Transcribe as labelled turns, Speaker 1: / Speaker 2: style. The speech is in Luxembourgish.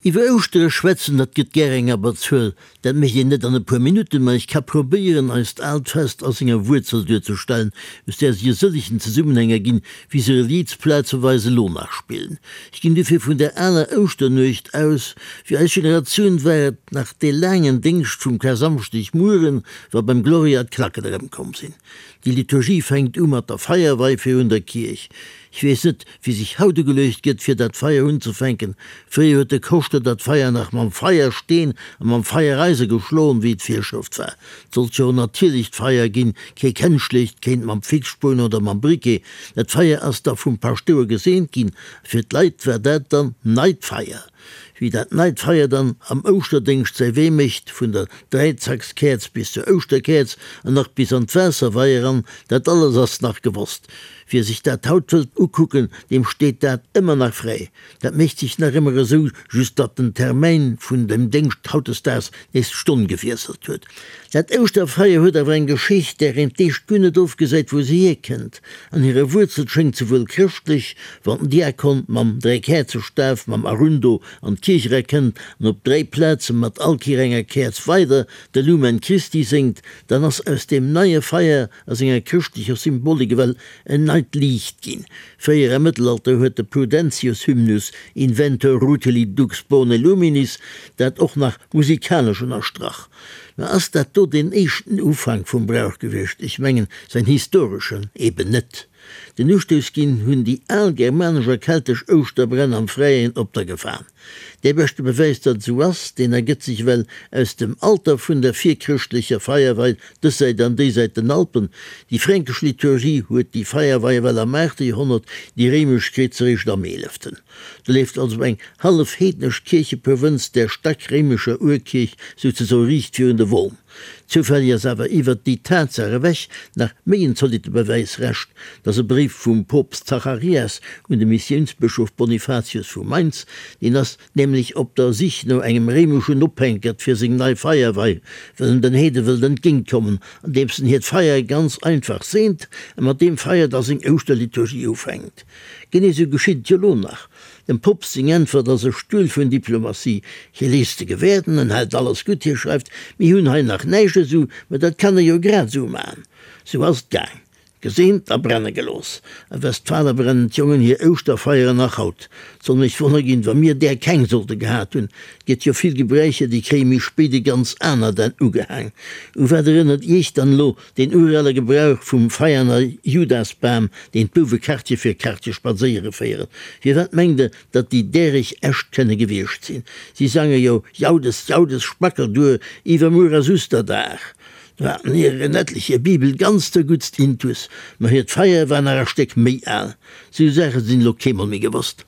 Speaker 1: Iwwer Ouschtere schwätzen, dat gëtt gär eng Abberzuel. Dat mécht een net an e puer Minutten, ma ech ka probéieren, eist aalt Fest a senger Wuerzel duerzestellen, aus där sech e sëllegen Zesummenhäng erginn, wéi se Reliz plazeweis elo nach spillen. Ech ginn dofir vun der aler Ouschternuecht aus. Fir eis Generatioun war et nach dee laangen Déngscht vum Karsamschdegmueren, wa beim Gloria d'Klacken erëmkomm sinn. Déi Liturgie fänkt u mat der Feierwei virun der Kierch. Ech weess net, wéi sech haut ugeluecht gëtt, fir dat Feier unzefänken. Fréier huet de Koschter dat Feier nach mam Feiersteen a mam Feiereise geschloen, wéi et Virschrëft war. Et sollt jo en natierlecht Feier ginn, kee kenschlecht, kéint mam Fixspuon oder mam Briquet. Dat Feier ass da vum Paschtouer geseent ginn a fir d'Leit war dat dann neit Feier. Wéi dat neit Feier dann am Ouschterdéngscht säi Wee mécht, vun der Dräizackskäerz bis zur Ouschterkäerz an nach bis an d'Waasserwei eran, dat alles ass nach gewosst. Wie sech dat haut wëllt ukucken, deem steet dat ëmmer nach fräi. Dat mécht sech nach ëmmer esou, just datt den Termäin vun dem Déngscht hautdesdaags nees d'Stonn gewiesselt huet. Dat Ouschterfeier huet awer eng Geschicht, där een d'éischt guer net ofgesäit, wou se hierkënnt. An hire Wuerzel schéngt se wuel chrëschtlech, wann den Diakon mam Dräikäerzestaf, mam Arundo, an d'Kierch era kënnt an op 3 Plaze mat all Kéier enger Käerz weider de Lumen Christi séngt, dann ass aus deem neie Feier a senger chrëschtlecher Symbolik ewell en neit Liicht ginn. Fréier am Mëttelalter huet de Prudentius Hymnus Inventor Rutili dux bone luminis dat och nach musikalesch ënnerstrach. Mä ass dat do deen éischten Ufank vum Brauch gewiescht? Ech mengen, säin historeschen eben net. Den Ustouss ginn hunn déi al germanesch a keltesch Ouschterbränn am Fräien op der Gefan. Dee beschte Bewäis, datt et esou ass, deen ergëtt sech ewell aus dem Alter vun der virchrëschtlecher Feierwei dës Säit an déi Säit den Alpen. Déi fränkesch Liturgie huet déi Feierwei ewell am aachte Joerhonnert, déi réimesch kritt se eréischt am eeleften. Do leeft also eng hallef heednesch Kiercheprovënz der stack réimescher Urkierch souzesoe riicht virun de Won. Zoufälleg ass awer iwwert déi Tatsaach ewech nach méi en zolitte Bewäis rescht, datt e Bréif vum Poopst Zacharias un de Missiounsbëschof Bonifatius vu Mainz, deen ass nämlech op der Sich no engem réimeschen Ophänkert fir seng nei Feierwei, well en den Heede wëllt entgéintkommen, andeems en hiert Feier ganz einfach seent a mat deem Feier da seng Ouschterliturgie ufänkt. Genee sou geschitt et jo lo nach. Dem Poopst seng Äntwert ass e Stull vun Diplomatie, Hie léisst se gewäerden, en hält alles gutt, hie schreift, Mir hunn hei nach näischt esou, mä dat kann e jo grad esou man. Sou ass et gaang. Geseent a brenne gelooss. A Westfale brennen d'Jongen hir Ouschterfeieren nach haut. 't soll mech wonner ginn, wa mir där keng sollte gehat hunn. 't gëtt jo vill Gebräicher, déi kréie méi spéit e ganz anert Enn ugehaang. U wat erënnert Iech dann elo Deen urale Gebrauch vum Veianer Judasbam, deen d'Bouwe Quartier fir Quartier spadséiere féieren. Firwat mengt Der, datt déi däreg echt kënne gewiescht sinn? Si sange jo Jaudes, Jaudes, Spackelduer, iwwermuer ass Usterdag. Do haten hir en etlich hir Bibel ganz zerguttst intus, ma hiert Feier war nach e Stéck méi al. Sou Saache sinn elo keemol méi gewosst.